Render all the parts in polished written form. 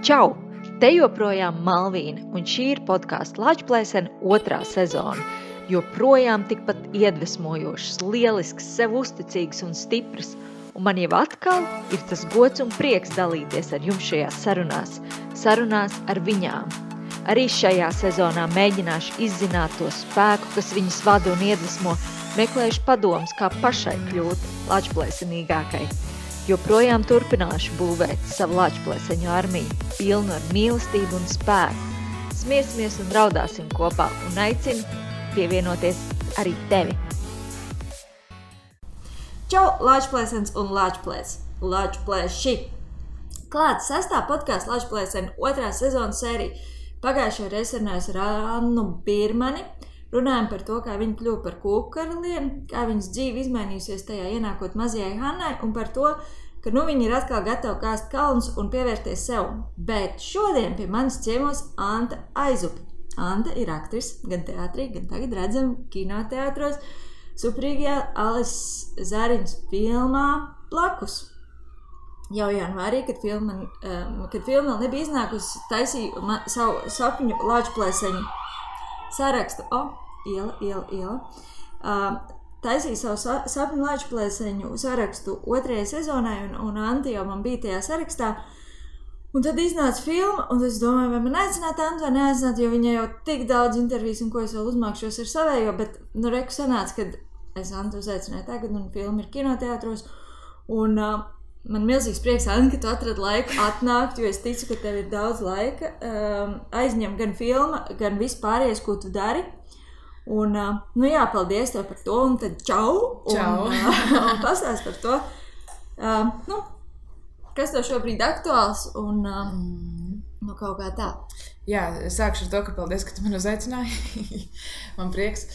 Čau! Te joprojām Malvīna, un šī ir podkāsta Lačplēsene 2. sezona. Joprojām tikpat iedvesmojošs, lielisks, sev uzticīgs un stiprs. Un man jau atkal ir tas gods un prieks dalīties ar jums šajās sarunās ar viņām. Arī šajā sezonā mēģināšu izzināt to spēku, kas viņas vada un iedvesmo, meklēšu padomus, kā pašai kļūt lačplēsenīgākai. Joprojām turpināšu būvēt savu lačplēseņu armiju, pilnu ar mīlestību un spēku. Smiesimies un raudāsim kopā un aicinu pievienoties arī tevi. Čau, Lačplēsens un Lačplēši! Klāts 6. podkāsta Lačplēsene 2. sezonas sērija. Pagājušajā reizē runājos ar Annu Birmani. Runājam par to, kā viņa kļuva par kūku karalieni, kā viņas dzīve izmainījusies tajā ienākot mazajai Hannai un par to, ka viņa ir atkal gatava kāst kalnus un pievērties sev. Bet šodien pie manis ciemos Anta Aizupe. Anta ir aktrise gan teātrī, gan tagad redzam kinoteātros superīgajā Alises Zariņas filmā Blakus. Jau janvārī, kad filma vēl nebija iznākusi, taisīju savu sapņu Lačplēseņu sarakstu. Iela. Taisīju savu sapņu Lačplēseņu sarakstu 2. sezonai, un Anta jau man bija tajā sarakstā. Un tad iznāca filma, un es domāju, vai man aicināt Antu vai neaicināt, jo viņa jau tik daudz intervijas, un ko es vēl uzmākšos ar savējo, bet reku sanāca, kad es Antu uzaicināju tagad, un filma ir kinoteātros, un man milzīgs prieks, Anta, ka tu atradi laiku atnākt, jo es ticu, ka tev ir daudz laika. Aizņem gan filma, gan vispārējais, ko tu dari. Un, paldies tev par to, un tad čau! Čau! Un pastāst par to, kas tev šobrīd aktuāls, un kaut kā tā. Jā, sākšu ar to, ka paldies, ka tu man uzaicināji. Man prieks.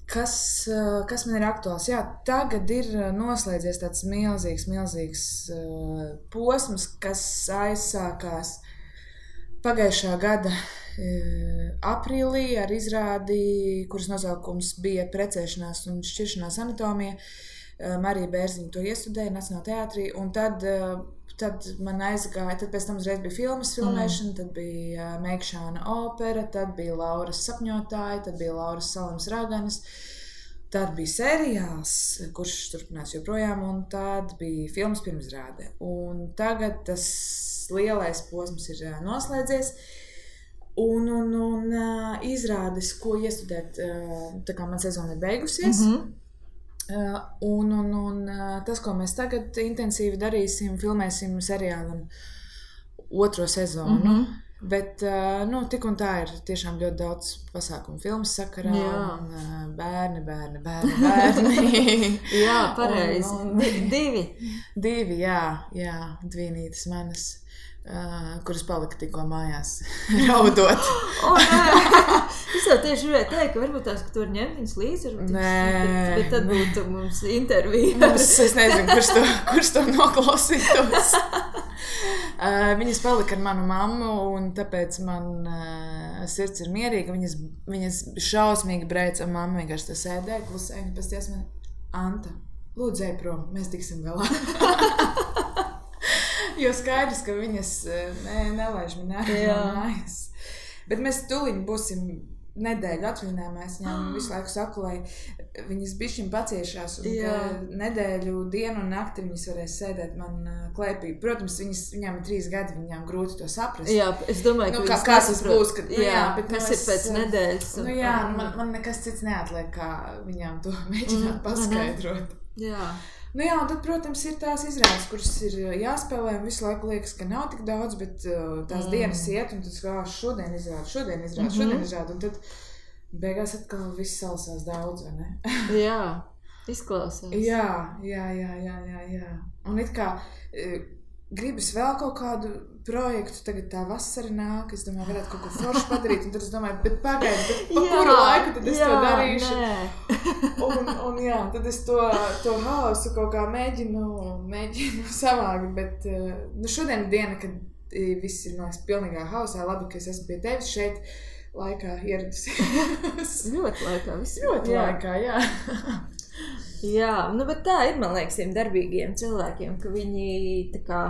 Kas man ir aktuāls? Jā, tagad ir noslēdzies tāds milzīgs posms, kas aizsākās pagājušā gada aprīlī ar izrādi, kuras nosaukums bija Precēšanās un šķiršanās anatomija. Marija Bērziņa to iestudēja Nacionālajā teātrī, un tad man aizgāja, tad pēc tam uzreiz bija filmas filmēšana, tad bija Meikšāna opera, tad bija Lauras sapņotāji, tad bija Lauras Salams Raganas, tad bija seriāls, kurš turpinās joprojām, un tad bija filmas pirmizrāde. Un tagad tas lielais posms ir noslēdzies, un izrādes, ko iestudēt, tā kā man sezona ir beigusies, un tas, ko mēs tagad intensīvi darīsim, filmēsim seriālam 2. sezonu. Bet tik un tā ir tiešām ļoti daudz pasākumu filmas sakarā. Un bērni. Jā, pareizi. Divi, jā, dvīnītes manas, kuras palika tikko mājās raudot. Es jau tieši gribēju teikt, ka varbūt tās, ka tu vari ņemt viņas līdzi, bet tad būtu mums intervija. Es nezinu, kurš to noklausītos. Viņas palika ar manu mammu, un tāpēc man sirds ir mierīga. Viņas šausmīgi brēca, un mamma vienkārši tā sēdēja, klusēja, un pēc ties man, Anta, lūdzu ej prom, mēs tiksim galā. Jo skaidrs, ka viņas nelaiž man ārā mājas. Bet mēs tuliņ būsim nedēļu atvaļinājumā. Es viņām visu laiku saku, lai viņas bišķiņ paciešās, un nedēļu, dienu un nakti viņas varēs sēdēt man klēpī. Protams, viņām ir 3 gadi, viņām grūti to saprast. Jā, es domāju, ka kas tas būs, kad, bet kas ir pēc nedēļas. Man nekas cits neatliek, kā viņām to mēģināt paskaidrot. Jā. Un tad, protams, ir tās izrādes, kuras ir jāspēlē, un visu laiku liekas, ka nav tik daudz, bet tās dienas iet, un tad šodien izrāda, un tad beigās atkal viss salasās daudz, vai ne? Jā, izklausās. Jā. Un it kā gribas vēl kaut kādu projektu, tagad tā vasara nāk, es domāju, varētu kaut ko foršu padarīt, un tad es domāju, bet pagaidi, pa kuru laiku tad es to darīšu? Un tad es to hausu kaut kā mēģinu savākt, bet šodien ir diena, kad viss ir, man liekas, pilnīgā hausā, labi, ka es esmu pie tevis šeit laikā ieradusies. Ļoti laikā, viss laikā, jā. Jā, bet tā ir, man liekas, tiem darbīgiem cilvēkiem, ka viņi tā kā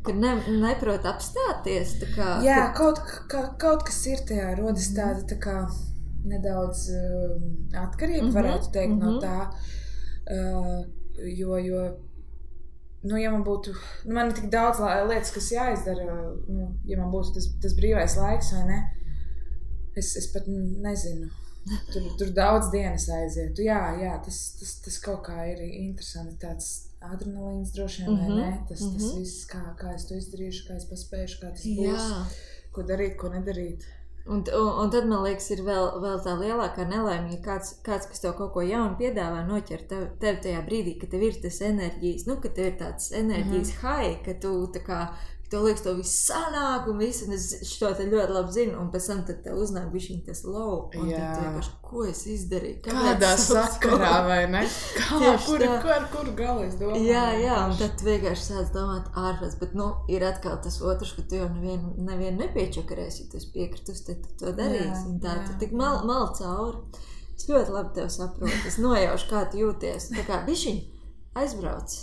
ka neprot apstāties. Tā kā, jā, kaut kas ir tajā, rodas tāda tā kā nedaudz atkarība, varētu teikt, no tā. Jo ja man būtu, man ir tik daudz lietas, kas jāizdara, ja man būtu tas brīvais laiks vai ne, es pat nezinu. Tur daudz dienas aizietu. Jā, tas kaut kā ir interesanti, tāds adrenalīns droši vien, vai ne? Tas viss, kā es to izdarīšu, kā es paspēšu, kā tas būs, ko darīt, ko nedarīt. Un tad, man liekas, ir vēl tā lielākā nelaime, ja kāds, kas tev kaut ko jaunu piedāvā, noķer tev tajā brīdī, ka tev ir tas enerģijas, ka tev ir tāds enerģijas high, ka tu tā kā, tev liekas, to viss sanāk un viss, un es šo te ļoti labi zinu, un pēc tam tad tev uznāk bišķiņ tas low, un tad tu vienkārši, ko es izdarīju? Kādā sakarā, vai ne? Kuru galu es domāju? Jā, un tad tu vienkārši sāc domāt ārpēc, bet, ir atkal tas otrs, ka tu jau nevienu nepiečakarēsi, ja tu esi piekritus, tad tu to darīsi, un tā tu tik mal cauri. Es ļoti labi tev saprotu, es nojaušu, kā tu jūties, tā kā bišķiņ aizbrauc.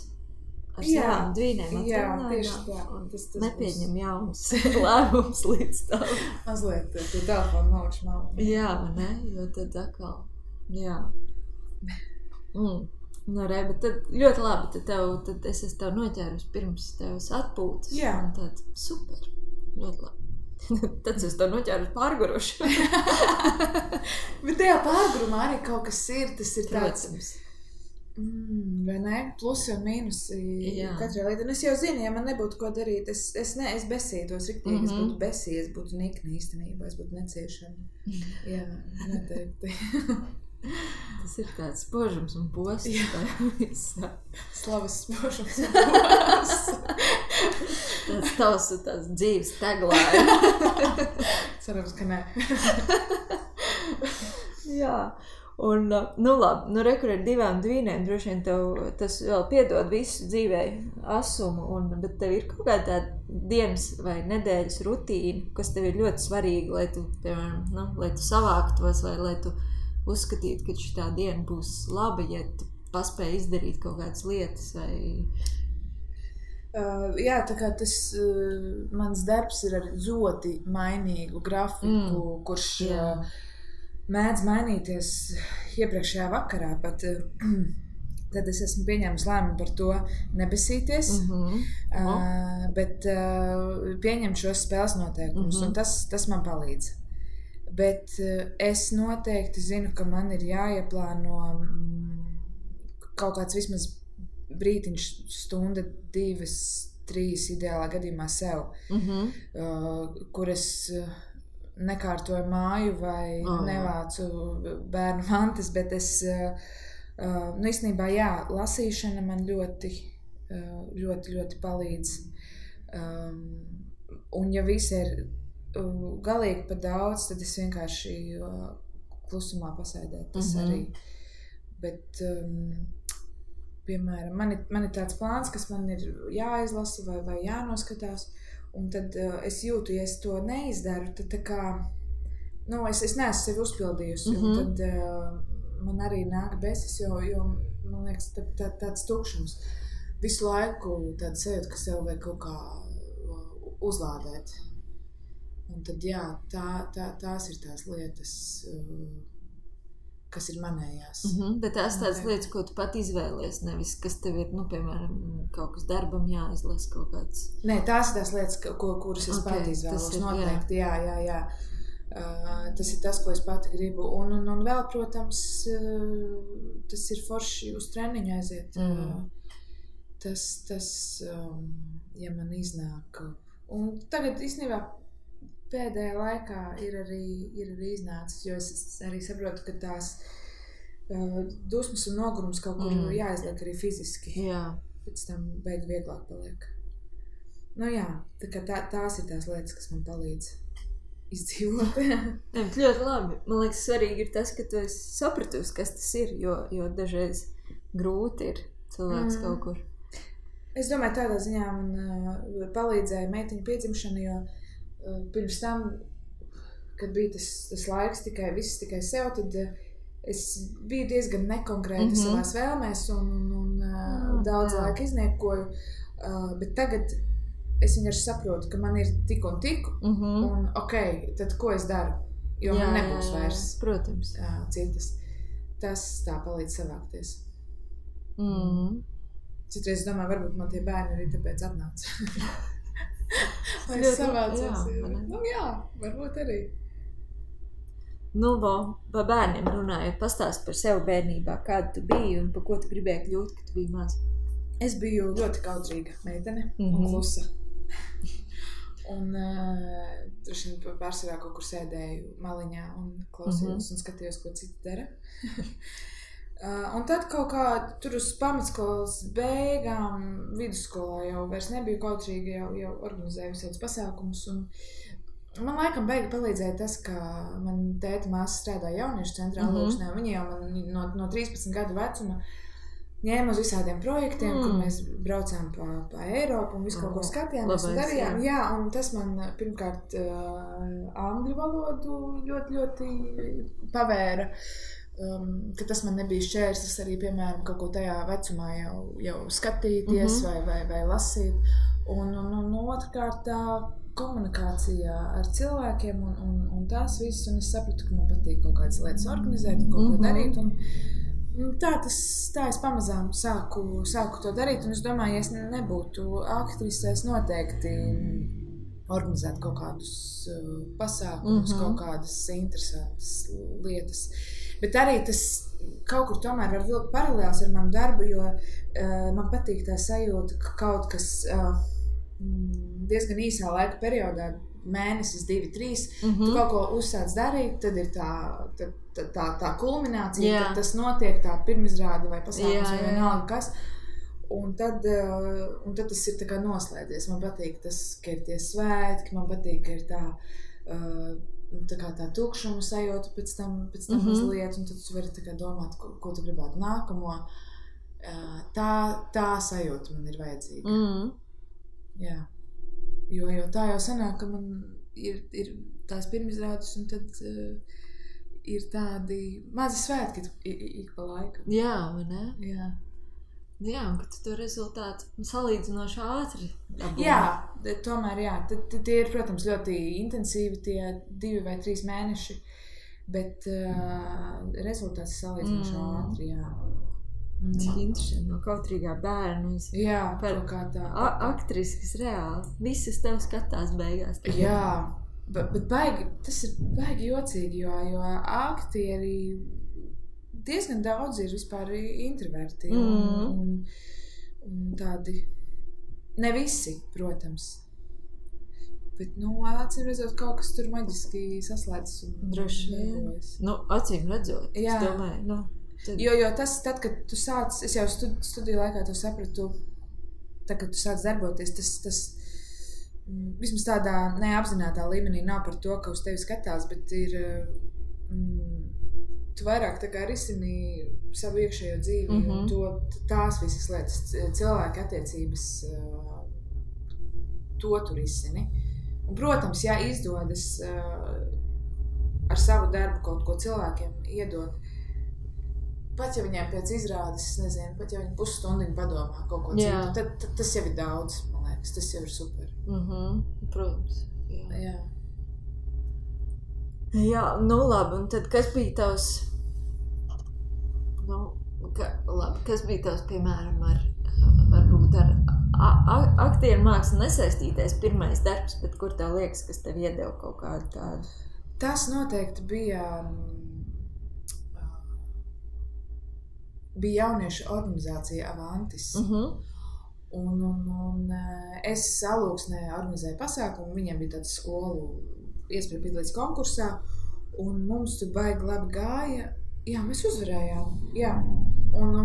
Ar savām dvīnēm tieši nepieņem jaunas lēmums līdz tam. Mazliet tu telefonu malkšu malu. Jā, ne? Jo tad atkal, jā. Bet tad ļoti labi, tad es esmu tev noķērus pirms tevs atpūtas. Jā. Un tad super, ļoti labi. Tad es tev noķērus pārguruši. Bet tajā pārgurumā arī kaut kas ir, tas ir tāds... Protams. Vai ne? Plusi un mīnusi katrai lietai. Un es jau zinu, ja man nebūtu ko darīt, es besītos riktīgi, es būtu besī, es būtu nikni īstenībā, es būtu neciešama. Jā, noteikti. Tas ir tāds spožums un posts. Slavas spožums un posts. Tāds dzīves tagline. Cerams, ka ne. Jā. Un, labi, rekur ar 2 dvīnēm, droši vien tev tas vēl piedod visu dzīvē asumu, bet tev ir kaut kāda tāda dienas vai nedēļas rutīna, kas tev ir ļoti svarīga, lai tu, piemēram, lai tu savāktos vai lai tu uzskatītu, ka šitā diena būs laba, ja tu paspēji izdarīt kaut kādas lietas vai... Jā, tā kā tas mans darbs ir ar ļoti mainīgu grafiku, kurš... mēdz mainīties iepriekšējā vakarā, pat tad es esmu pieņēmis lēmumu par to nebesīties, bet pieņemt šos spēles noteikumus, un tas man palīdz. Bet es noteikti zinu, ka man ir jāieplāno kaut kāds vismaz brītiņš, stunda, 2, 3 ideālā gadījumā sev, kur es... nekārtoju māju vai nevācu bērnu mantas, bet es, īstenībā, lasīšana man ļoti, ļoti, ļoti palīdz. Un ja viss ir galīgi pa daudz, tad es vienkārši klusumā pasēdētu, tas arī. Bet, piemēram, man ir tāds plāns, kas man ir jāizlasa vai jānoskatās, un tad es jūtu, ja es to neizdaru, tad tā kā, es neesmu sevi uzpildījusi, un tad man arī nāk besis, jo man liekas, tāds tukšums. Visu laiku tāda sajūta, ka sev vajag kaut kā uzlādēt. Un tad, tās ir tās lietas, kas ir manējās. Bet tās tādas lietas, ko tu pat izvēlies, nevis, kas tev ir, piemēram, kaut kas darbam jāizlas kaut kāds. Nē, tās ir tās lietas, kuras es pat izvēlos, noteikti, jā. Tas ir tas, ko es pati gribu. Un vēl, protams, tas ir forši uz treniņu aiziet. Tas, ja man iznāk. Un tagad, īstenībā, pēdējā laikā ir arī iznācis, jo es arī saprotu, ka tās dusmas un nogurums kaut kur jāizliek arī fiziski. Jā. Pēc tam beig vieglāk paliek. Tā kā tās ir tās lietas, kas man palīdz izdzīvot. Ļoti labi. Man liekas, svarīgi ir tas, ka tu esi sapratusi, kas tas ir, jo dažreiz grūti ir cilvēks kaut kur. Es domāju, tādā ziņā man palīdzēja meitiņu piedzimšana, jo pirms tam, kad bija tas laiks viss tikai sev, tad es biju diezgan nekonkrēta savās vēlmēs un daudz laika izniekoju, bet tagad es vienkārši saprotu, ka man ir tik un tik, un tad ko es daru? Jo man nebūs vairs protams. Citas. Tas tā palīdz savākties. Citreiz es domāju, varbūt man tie bērni arī tāpēc atnāca. Lai es savācos. Varbūt arī. Pa bērniem runājot, pastāst par sevi bērnībā, kāda tu biji un par ko tu gribēji kļūt, kad tu biji maz? Es biju ļoti kautrīga meitene un klusa. Un droši vien pārsvarā kaut kur sēdēju maliņā un klausījos un skatījos, ko citi dara. Un tad kaut kā tur uz pamatskolas beigām, vidusskolā jau vairs nebiju kautrīga, jau organizēju visādus pasākumus. Un man laikam beigi palīdzēja tas, ka man tēta māsa strādāja jauniešu centrā Lūksnē. Viņi jau man no 13 gadu vecuma ņēma uz visādiem projektiem, kur mēs braucām pa Eiropu un visu kaut ko skatījāmies un darījām. Jā, un tas man pirmkārt angļu valodu ļoti, ļoti pavēra, ka tas man nebija šķērslis arī, piemēram, kaut ko tajā vecumā jau skatīties vai lasīt. Un otrkārt tā komunikācijā ar cilvēkiem un tās visas, un es sapratu, ka man patīk kaut kādas lietas organizēt un kaut ko darīt. Tā es pamazām sāku to darīt, un es domāju, ja es nebūtu aktrise, es noteikti organizētu kaut kādus pasākumus, kaut kādas interesantas lietas. Bet arī tas kaut kur tomēr var vilkt paralēls ar manu darbu, jo man patīk tā sajūta, ka kaut kas diezgan īsā laika periodā, mēnesis, 2, 3, tu kaut ko uzsāc darīt, tad ir tā kulminācija, tad tas notiek tā pirmizrāde vai pasākums vai vienalga kas, un tad tas ir tā kā noslēdzies. Man patīk tas, ka ir tie svētki, man patīk, ka ir tā tukšuma sajūta pēc tam mazliet, un tad tu vari tā kā domāt, ko tu gribētu nākamo. Tā sajūta man ir vajadzīga. Jā. Jo tā jau sanāk, ka man ir tās pirmizrādes, un tad ir tādi mazi svētki ik pa laikam. Jā, vai ne? Jā. Jā, un ka tu to rezultātu salīdzinoši ātri dabūji. Jā, tomēr jā. Tie ir, protams, ļoti intensīvi tie 2 vai 3 mēneši, bet rezultāts salīdzinoši ātri, jā. Cik interesanti, no kautrīgā bērna par kā tā aktrisi, kas reāli visas tev skatās beigās. Jā, bet tas ir baigi jocīgi, jo aktieri diezgan daudz ir vispār introverti un tādi, ne visi, protams. Bet, acīm redzot, kaut kas tur maģiski saslēdzas un droši vien. Acīm redzot, es domāju, Jo tas, tad, kad tu sāc, es jau studiju laikā to sapratu, tad, kad tu sāc darboties, tas vismaz tādā neapzinātā līmenī nav par to, ka uz tevi skatās, bet ir, tu vairāk tā kā risini savu iekšējo dzīvi, un tās visas lietas, cilvēki attiecības, to tu risini. Un, protams, ja izdodas ar savu darbu kaut ko cilvēkiem iedot, pat ja viņiem pēc izrādes, es nezinu, pat ja viņi pusstundiņu padomā kaut ko citu, tad tas jau ir daudz, man liekas, tas jau ir super. Protams. Jā. Jā, labi, un tad kas bija tavs, kas bija tavs, piemēram, varbūt ar aktieru mākslu nesaistītais pirmais darbs, bet kur tev liekas, kas tev iedeva kaut kādu tādu? Tas noteikti bija jauniešu organizācija Avantis. Un es Alūksnē organizēju pasākumu, viņiem bija tāds skolu iespēja piedalīties konkursā, un mums tur baigi labi gāja. Jā, mēs uzvarējām, jā. Un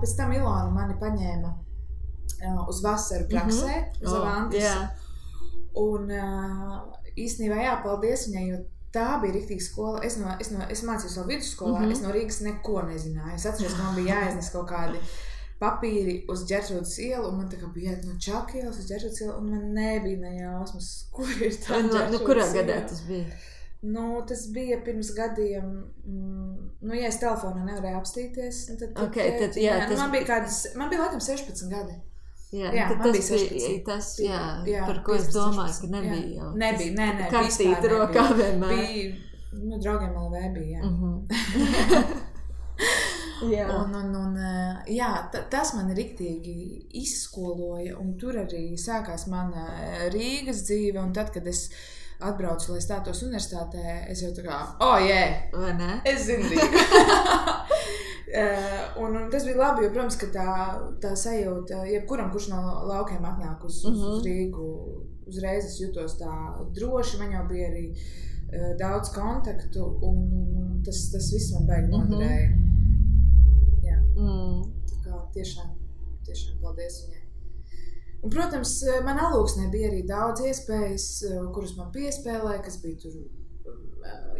pēc tam Ilona mani paņēma uz vasaru praksē, uz Avantis. Un īstenībā paldies viņai, jo tā bija riktīga skola. Es mācījos vēl vidusskolā, es no Rīgas neko nezināju. Es atceros, ka man bija jāiznes kaut kādi papīri uz Ģertrūdas ielu, un man tā kā bija jāiet no Čaku ielas uz Ģertrūdas ielu, un man nebija nejausmas, kur ir tā Ģertrūdas iela. Kurā gadā tas bija? Tas bija pirms gadiem, ja es telefonā nevarēju apstīties, tad man bija laikam 16 gadi. Jā, tad man tas bija bija 16. tas, Jā, par ko es 15, domāju, 16, ka nebija jā. jau. Nebija, nē, Karstīt vispār rokā nebija. vienmēr. Bija, draugiem LV bija, jā. Jā. Un jā, tas man riktīgi izskoloja, un tur arī sākās mana Rīgas dzīve, un tad, kad es atbraucu, lai stātos universitātē, es jau tā kā, Vai ne? es zinu Rīgu. Un tas bija labi, jo, protams, ka tā sajūta, jebkuram, kurš no laukiem atnāk uz Rīgu, uzreiz es jutos tā droši, man jau bija arī daudz kontaktu, un tas viss man baigi noderēja. Jā. Tā kā tiešām paldies viņai. Un, protams, man Alūksnē bija arī daudz iespējas, kuras man piespēlēja, kas bija tur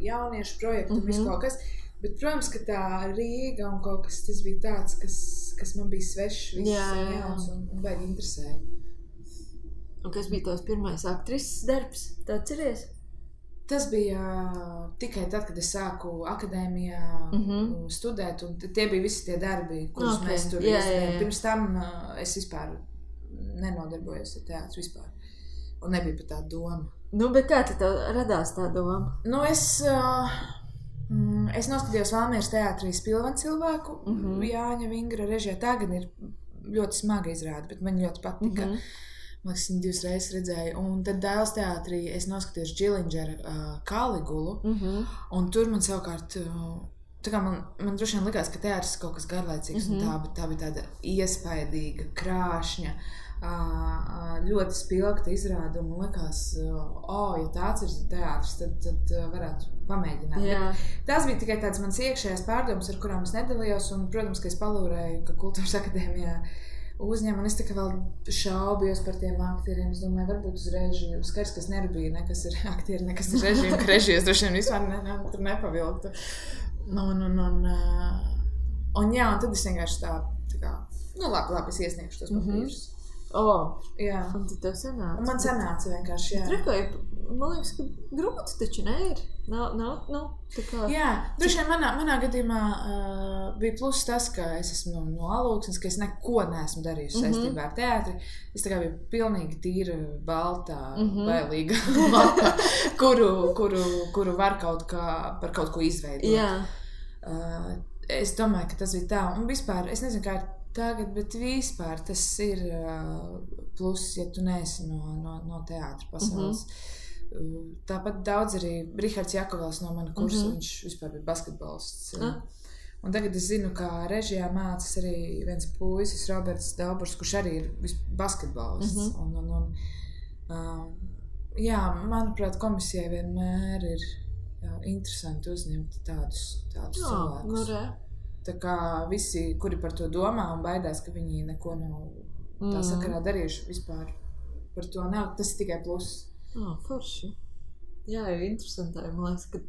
jauniešu projekti un visu kaut kas. Bet, protams, ka tā Rīga un kaut kas, tas bija tāds, kas man bija svešs, viss jauns un baigi interesēja. Un kas bija tavs pirmais aktrises darbs? Tu atceries? Tas bija tikai tad, kad es sāku akadēmijā studēt, un tie bija visi tie darbi, kurus mēs tur izdarījām. Pirms tam es vispār nenodarbojos ar teātru vispār, un nebija pat tā doma. Nu, bet kā tev radās tā doma? Nu, es noskatījos Valmieras teātrī Spilvena cilvēku, Jāņa Vingra režijā. Tā gan ir ļoti smaga izrāde, bet man ļoti patika. Man liekas, viņu 2 reizes redzēju. Un tad Dailes teātrī es noskatījos Džilindžera Kaligulu, un tur man savukārt, tā kā man droši vien likās, ka teātris ir kaut kas garlaicīgs, un tā bija tāda iespaidīga, krāšņa, ļoti spilgta izrāde, un man likās, ja tāds ir teātris, tad varētu pamēģināt. Tas bija tikai tāds mans iekšējās pārdomas, ar kurām es nedalījos, un, protams, ka es palūrēju, ka Kultūras akadēmijā uzņem, un es tā kā vēl šaubījos par tiem aktieriem. Es domāju, varbūt uz režiju. Skaidrs, ka es nerubīju, nekas ir aktieri, nekas ir režiju, ka režijas droši vien vispār tur nepavilktu. Un tad es vienkārši tā kā, labi, es iesniegšu tos papīrus. Jā. Un tad tev sanāca? Man sanāca vienkārši, jā. Trekoja, man liekas, ka grūti taču neir. Nav, tā kā... Jā, droši vien manā gadījumā bija pluss tas, ka es esmu no Alūksnes, ka es neko neesmu darījusi saistībā ar teātri. Es tā kā biju pilnīgi tīra, baltā, bailīga mata, kuru var par kaut ko izveidot. Jā. Es domāju, ka tas bija tā. Un vispār, es nezinu, kā ir tagad, bet vispār tas ir pluss, ja tu neesi no teātra pasaules. Tāpat daudz arī Rihards Jakovels no mana kursa, viņš vispār bija basketbolists. Un tagad es zinu, ka režijā mācās arī viens puisis, Roberts Dauburs, kurš arī ir basketbolists. Jā, manuprāt, komisijai vienmēr ir interesanti uzņemt tādus cilvēkus. Tā kā visi, kuri par to domā un baidās, ka viņi neko nav tā sakarā darījuši vispār par to nav, tas ir tikai pluss. Forši. Jā, jau interesanti. Man liekas, ka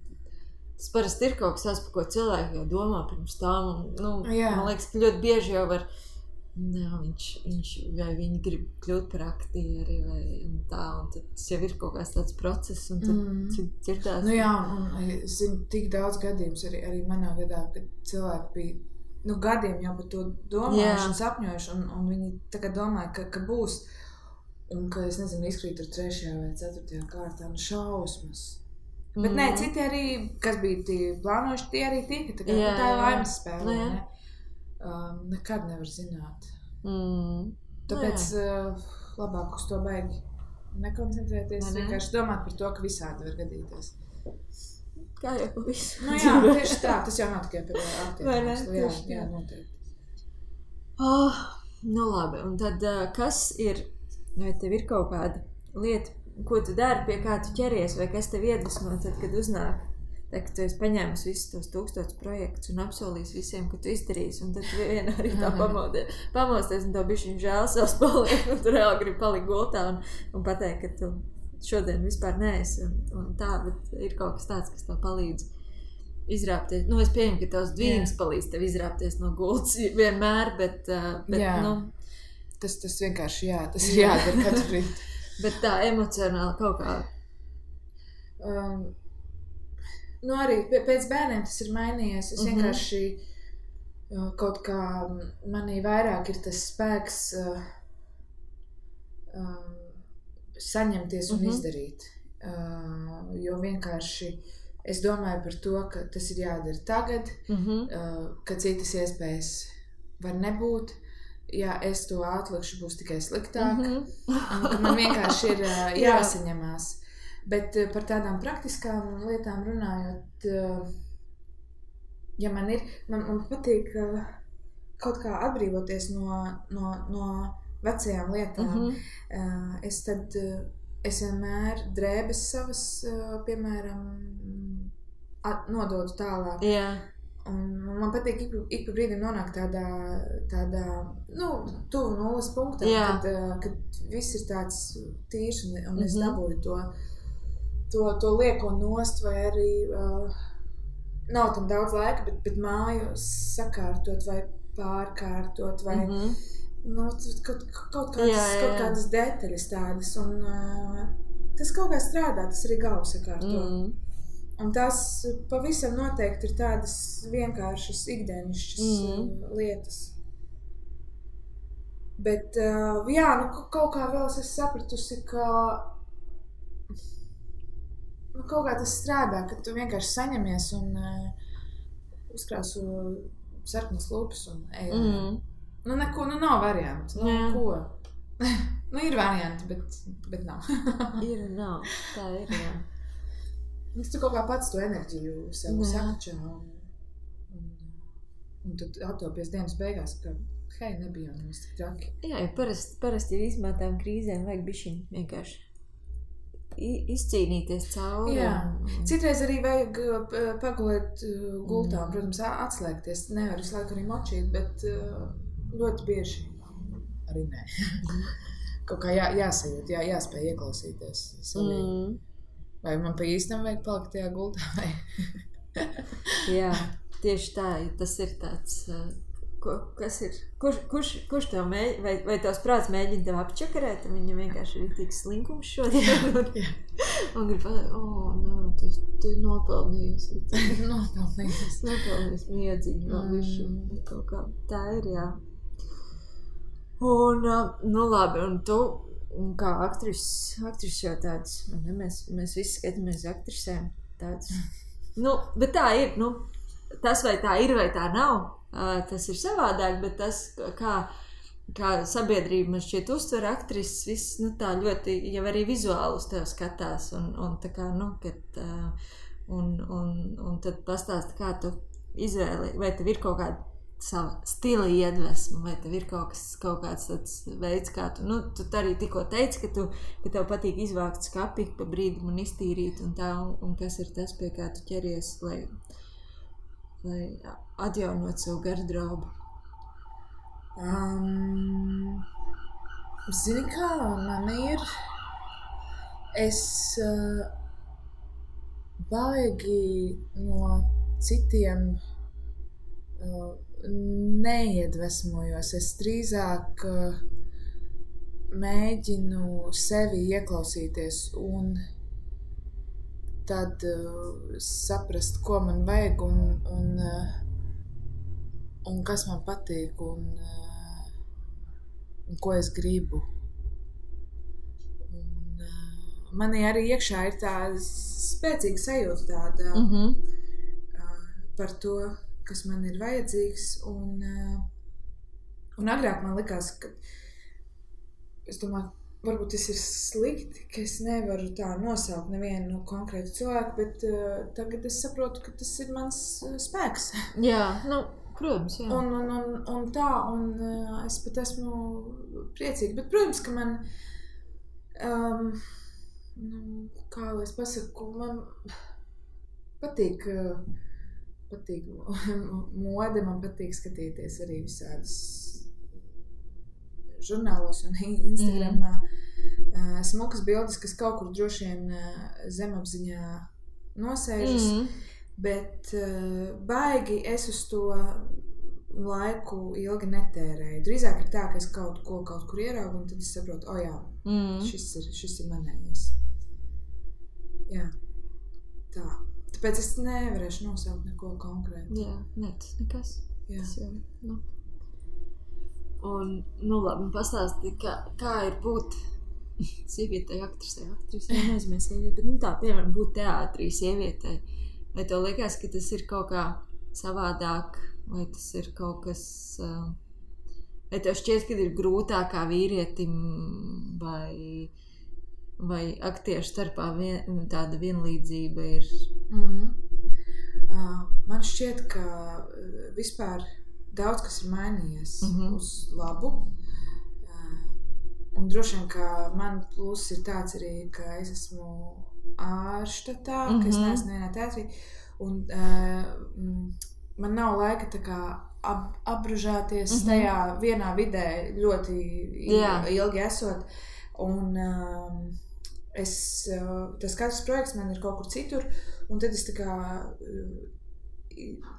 tas parasti ir kaut kas tāds, par ko cilvēki jau domā pirms tām. Man liekas, ka ļoti bieži jau var, viņš vai viņi grib kļūt par aktieri vai tā, un tad tas jau ir kaut kāds tāds process, un tad dzirdās. Nu jā, un es zinu tik daudz gadījumus arī manā gadā, kad cilvēki bija gadiem jau par to domājuši un sapņojuši, un viņi tagad domāja, ka būs, un ka, es nezinu, izkrīt ar 3. vai 4. kārtā, šausmas. Bet nē, citi arī, kas bija plānojuši, tie arī tika, tā ir laimes spēle, ne? Nekad nevar zināt. Tāpēc labāk uz to baigi nekoncentrēties, vienkārši domāt par to, ka visādi var gadīties. Kā jau pa visu. Jā, tieši tā, tas jau nav tikai par aktieriem. Jā, noteikti. Labi, un tad kas ir, vai tev ir kaut kāda lieta, ko tu dari, pie kā tu ķeries, vai kas tev iedvesmo, tad, kad uznāk? Tad, kad tu esi paņēmis visus tos 1000 projektus un apsolījis visiem, ka tu izdarīsi, un tad vienā arī tā pamosties, un tev bišķiņ žēl savs paliek, un tu reāli gribi palikt gultā un pateikt, ka tu šodien vispār neesi, un tā, bet ir kaut kas tāds, kas tev palīdz izrāpties. Es pieņemu, ka tavs dvīņas palīdz tev izrāpties no gultas vienmēr, bet Tas vienkārši, tas ir jādara katru rītu. Bet tā emocionāli kaut kā... Arī pēc bērniem tas ir mainījies. Es vienkārši kaut kā manī vairāk ir tas spēks saņemties un izdarīt. Jo vienkārši es domāju par to, ka tas ir jādara tagad, ka citas iespējas var nebūt. Ja es to atlikšu, būs tikai sliktāk. Un ka man vienkārši ir jāsaņemās. Bet par tādām praktiskām lietām runājot, ja man patīk kaut kā atbrīvoties no vecajām lietām, es vienmēr drēbes savas, piemēram, nododu tālāk. Un man patīk ik pa brīdim nonākt tādā tuvu nulles punktā, kad viss ir tāds tīrs un es dabūju to lieko nost, vai arī nav tam daudz laika, bet māju sakārtot vai pārkārtot vai kaut kādas detaļas tādas. Un tas kaut kā strādā, tas arī galvu sakārto. Un tās pavisam noteikti ir tādas vienkāršas, ikdienišķas lietas. Bet, kaut kā vēl es sapratusi, ka kaut kā tas strādā, ka tu vienkārši saņemies un uzkrāsu sarkanas lūpas un ejam. Neko, nav variantu. Ko? Ir varianti, bet nav. Ir, nav. Tā ir, jā. Tu kaut kā pats to enerģiju sev sakačā un tad attopies dienas beigās, ka hei, nebija nemaz tik traki. Jā, parasti ir izmētām krīzēm vajag bišķiņ vienkārši izcīnīties cauri. Jā. Citreiz arī vajag pagulēt gultā, protams, atslēgties. Nevar visu laiku arī močīt, bet ļoti bieži arī nē. Kaut kā jāsajūt, jāspēj ieklausīties savī. Vai man pa īstam vajag palikt tajā gultā, vai? Jā, tieši tā, tas ir tāds, kas ir, kurš tev vai tavs prāts mēģina tev apčakarēt, un viņam vienkārši ir tik slinkums šodien, un grib pateikt, tu nopelnījusi. Nopelnījusi miedziņu vēl višu, kaut kā, tā ir, jā. Un, labi, un tu, un kā aktris jau tāds, mēs visi skatāmies aktrisēm tāds. Bet tā ir, tas vai tā ir vai tā nav, tas ir savādāk, bet tas, kā sabiedrība man šķiet uztver aktrises, viss, tā ļoti, jau arī vizuāli uz tev skatās, un tā kā, kad, un tad pastāsti, kā tu izvēli, vai tev ir kaut kāda sava stila iedvesma, vai tev ir kaut kāds tāds veids, kā tu arī tikko teici, ka tev patīk izvākt skapi pa brīdim un iztīrīt un tā, un kas ir tas, pie kā tu ķeries, lai atjaunot savu garderobu? Zini kā, man ir, es baigi no citiem neiedvesmojos. Es drīzāk mēģinu sevi ieklausīties un tad saprast, ko man vajag un kas man patīk un ko es gribu. Manī arī iekšā ir tā spēcīga sajūta tāda par to, kas man ir vajadzīgs, un agrāk man likās, ka es domāju, varbūt tas ir slikti, ka es nevaru tā nosaukt nevienu konkrētu cilvēku, bet tagad es saprotu, ka tas ir mans spēks. Jā, protams, jā. Un tā, un es pat esmu priecīga, bet, protams, ka man, kā lai es pasaku, man patīk mode, man patīk skatīties arī visādas žurnālos un Instagramā smukas bildes, kas kaut kur droši vien zemapziņā nosēžas, bet baigi es uz to laiku ilgi netērēju. Drīzāk ir tā, ka es kaut kur ieraugu un tad es saprotu, šis ir manējais. Jā, tā. Tāpēc es nevarēšu nosaukt neko konkrētu. Jā, nekas. Jā. Tas jau, Un, labi, pastāsti, kā ir būt Sievietei, aktrisei, nezinu, sievietei. Nu tā, piemēram, būt teātrī sievietei. Vai tev liekas, ka tas ir kaut kā savādāk, vai tas ir kaut kas... Vai tev šķiet, ka ir grūtāk kā vīrietim, vai aktiešu starpā tāda vienlīdzība ir? Man šķiet, ka vispār daudz kas ir mainījies uz labu. Un droši vien, ka man pluss ir tāds arī, ka es esmu ārštatā, ka es neesmu nevienā teātrī. Un man nav laika tā kā apbružāties tajā vienā vidē ļoti ilgi esot. Un tas katrs projekts man ir kaut kur citur, un tad es tā kā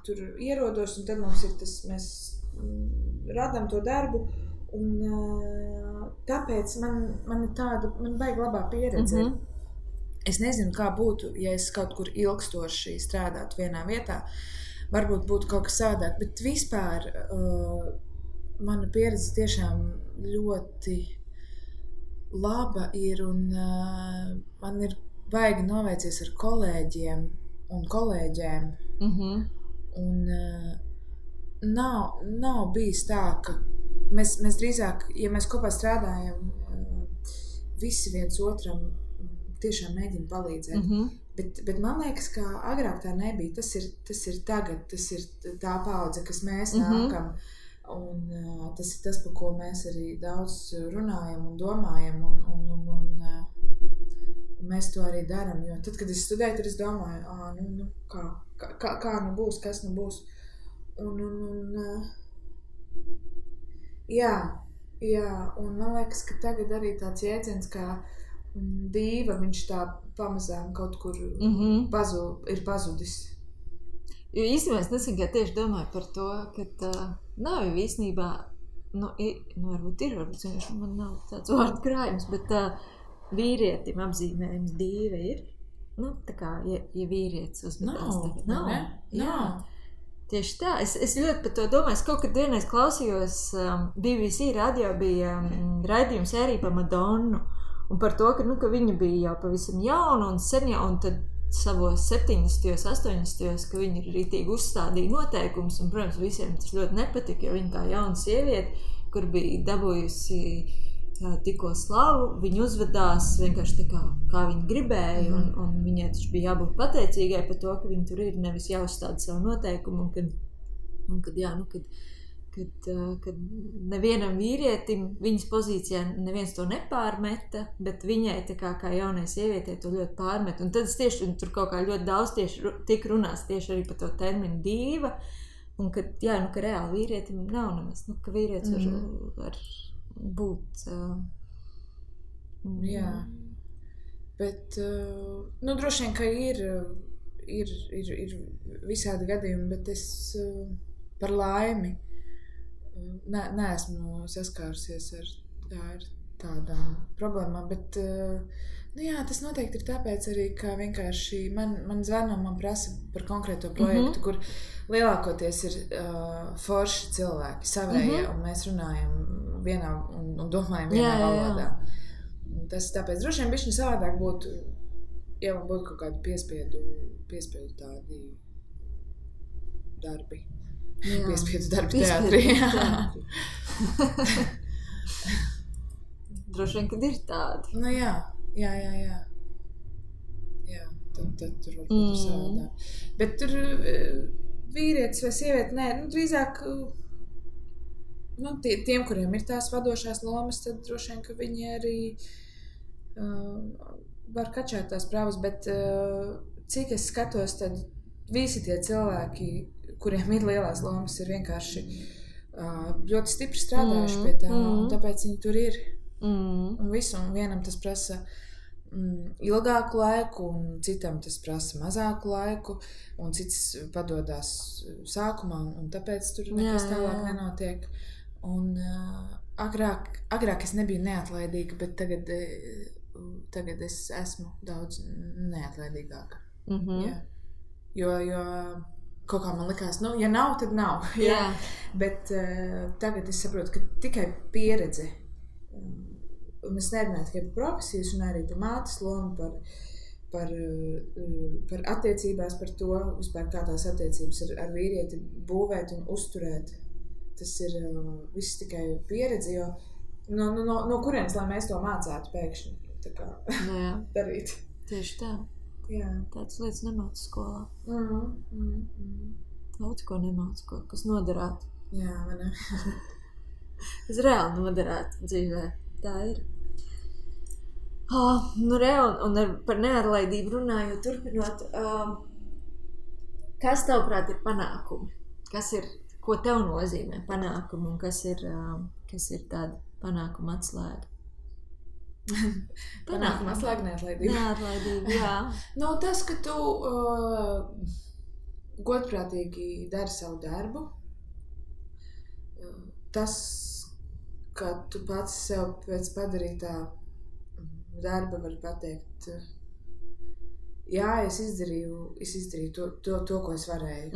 tur ierodos, un tad mums ir tas, mēs radām to darbu, un tāpēc man ir tāda, man vajag labā pieredze. Es nezinu, kā būtu, ja es kaut kur ilgstoši strādātu vienā vietā, varbūt būtu kaut kas savādāk, bet vispār mana pieredze tiešām ļoti laba ir, un man ir baigi noveicies ar kolēģiem un kolēģēm. Un nav bijis tā, ka mēs drīzāk, ja mēs kopā strādājam, visi viens otram tiešām mēģina palīdzēt. Bet man liekas, ka agrāk tā nebija. Tas ir tagad, tas ir tā paudze, kas mēs nākam. Un tas ir tas, par ko mēs arī daudz runājam un domājam. Un mēs to arī darām. Jo tad, kad es studēju, tad es domāju, kā nu būs, kas nu būs. Un man liekas, ka tagad arī tāds jēdziens kā dīva, viņš tā pamazām kaut kur ir pazudis. Jo īstenībā es nesen kā tieši domāju par to, ka nav jau īstenībā, varbūt ir, varbūt man nav tāds vārdu krājums, bet vīrietim apzīmējums dīva ir. Tā kā, ja vīrietis uzmetās tagad. Nav. Tieši tā. Es ļoti par to domāju. Es kaut kad vienreiz klausījos, BBC radio bija raidījums sērija par Madonnu. Un par to, ka viņa bija jau pavisam jauna un sen jau, un tad savos 70. 80. ka viņa rītīgi uzstādīja noteikumus, un, protams, visiem tas ļoti nepatika, jo viņa tā jauna sieviete, kur bija dabūjusi tikko slavu, viņa uzvedās vienkārši tā kā viņa gribēja, un viņai taču bija jābūt pateicīgai par to, ka viņa tur ir, nevis jāuzstāda savu noteikumu, un kad nevienam vīrietim viņas pozīcijā neviens to nepārmeta, bet viņai tā kā jaunai sievietei to ļoti pārmet. Un tad es tieši tur kaut kā ļoti daudz tik runās tieši arī par to terminu dīva, un ka reāli vīrietim nav nemaz, ka vīrietis var būt... Jā, bet droši vien, ka ir visādi gadījumi, bet es par laimi neesmu saskārusies ar tādām problēmām, bet tas noteikti ir tāpēc arī, ka vienkārši man zvana un man prasa par konkrēto projektu, kur lielākoties ir forši cilvēki, savējie, un mēs runājam vienā un domājam vienā valodā. Tas tāpēc droši vien bišķiņ savādāk būtu, ja man būtu kaut kādi piespiedu tādi darbi. Piespiedu darbi teātrī. Droši vien, kad ir tādi. Jā, tad tur varbūt ir savādāk. Bet tur vīrietis vai sieviete, drīzāk tiem, kuriem ir tās vadošās lomas, tad droši vien, ka viņi arī var kačāt tās prāvas, bet cik es skatos, tad visi tie cilvēki, kuriem ir lielās lomas, ir vienkārši ļoti stipri strādājuši pie tā, un tāpēc viņi tur ir. Un visu, un vienam tas prasa ilgāku laiku, un citam tas prasa mazāku laiku, un cits padodās sākumā, un tāpēc tur nekas tālāk nenotiek. Un agrāk es nebiju neatlaidīga, bet tagad es esmu daudz neatlaidīgāka. Jo kaut kā man likās, ja nav, tad nav. Bet tagad es saprotu, ka tikai pieredze un es nerunāju tikai par profesiju, un arī par mātes lomu, par attiecībās, par to, vispār kā tās attiecības ar vīrieti būvēt un uzturēt. Tas ir viss tikai pieredze, jo no kurienes, lai mēs to mācētu pēkšņi tā kā darīt. Tieši tā. Jā. Tādas lietas nemāca skolā. Daudz ko nemāca, kas noderētu. Jā, vai ne? Kas reāli noderētu dzīvē. Tā ir. Nu, un par neatlaidību runājot, turpinot, kas tavprāt ir panākumi? Ko tev nozīmē panākumi un kas ir tāda panākuma atslēga? Panākuma atslēga neatlaidība. Neatlaidība, jā. Nu, tas, ka tu godprātīgi dari savu darbu, tas, ka tu pats sev pēc padarītā darba var pateikt, jā, es izdarīju to, ko es varēju.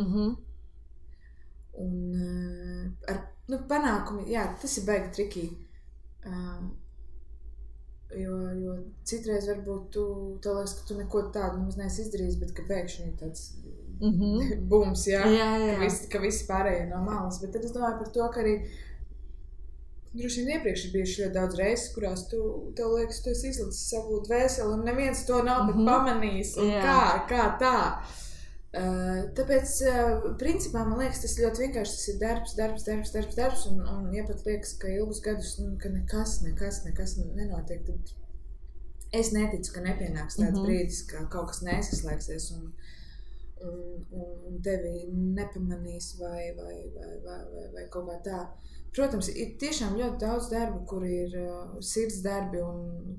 Un ar panākumi, jā, tas ir baigi trikī. Jo citreiz varbūt tev liekas, ka tu neko tādu nemaz neesi izdarījis, bet ka pēkšņi ir tāds bums, jā. Ka visi pārējie no malas. Bet tad es domāju par to, ka arī droši vien iepriekš ir bijuši ļoti daudz reizes, kurās tev liekas, tu esi izlicis savu dvēseli un neviens to nav pat pamanījis. Un kā tā. Tāpēc, principā, man liekas, tas ļoti vienkārši tas ir darbs un ja pat liekas, ka ilgus gadus, ka nekas nenotiek, tad es neticu, ka nepienāks tāds brīdis, ka kaut kas nesaslēgsies un tevi nepamanīs vai kaut kā tā. Protams, ir tiešām ļoti daudz darbu, kur ir sirds darbi un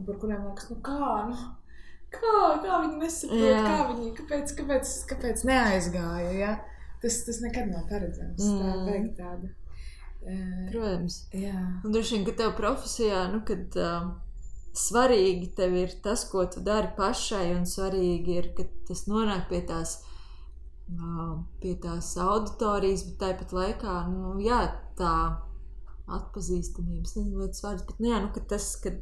par kuriem liekas, kā viņi nesaprot, kāpēc neaizgāja, ja? Tas nekad nav paredzams, tā vajag tāda. Protams. Jā. Un droši vien, ka tev profesijā, kad svarīgi tev ir tas, ko tu dari pašai, un svarīgi ir, ka tas nonāk pie tās auditorijas, bet tāpat laikā, tā atpazīstamības, nezinu, ļoti svarīgs, bet ka tas, kad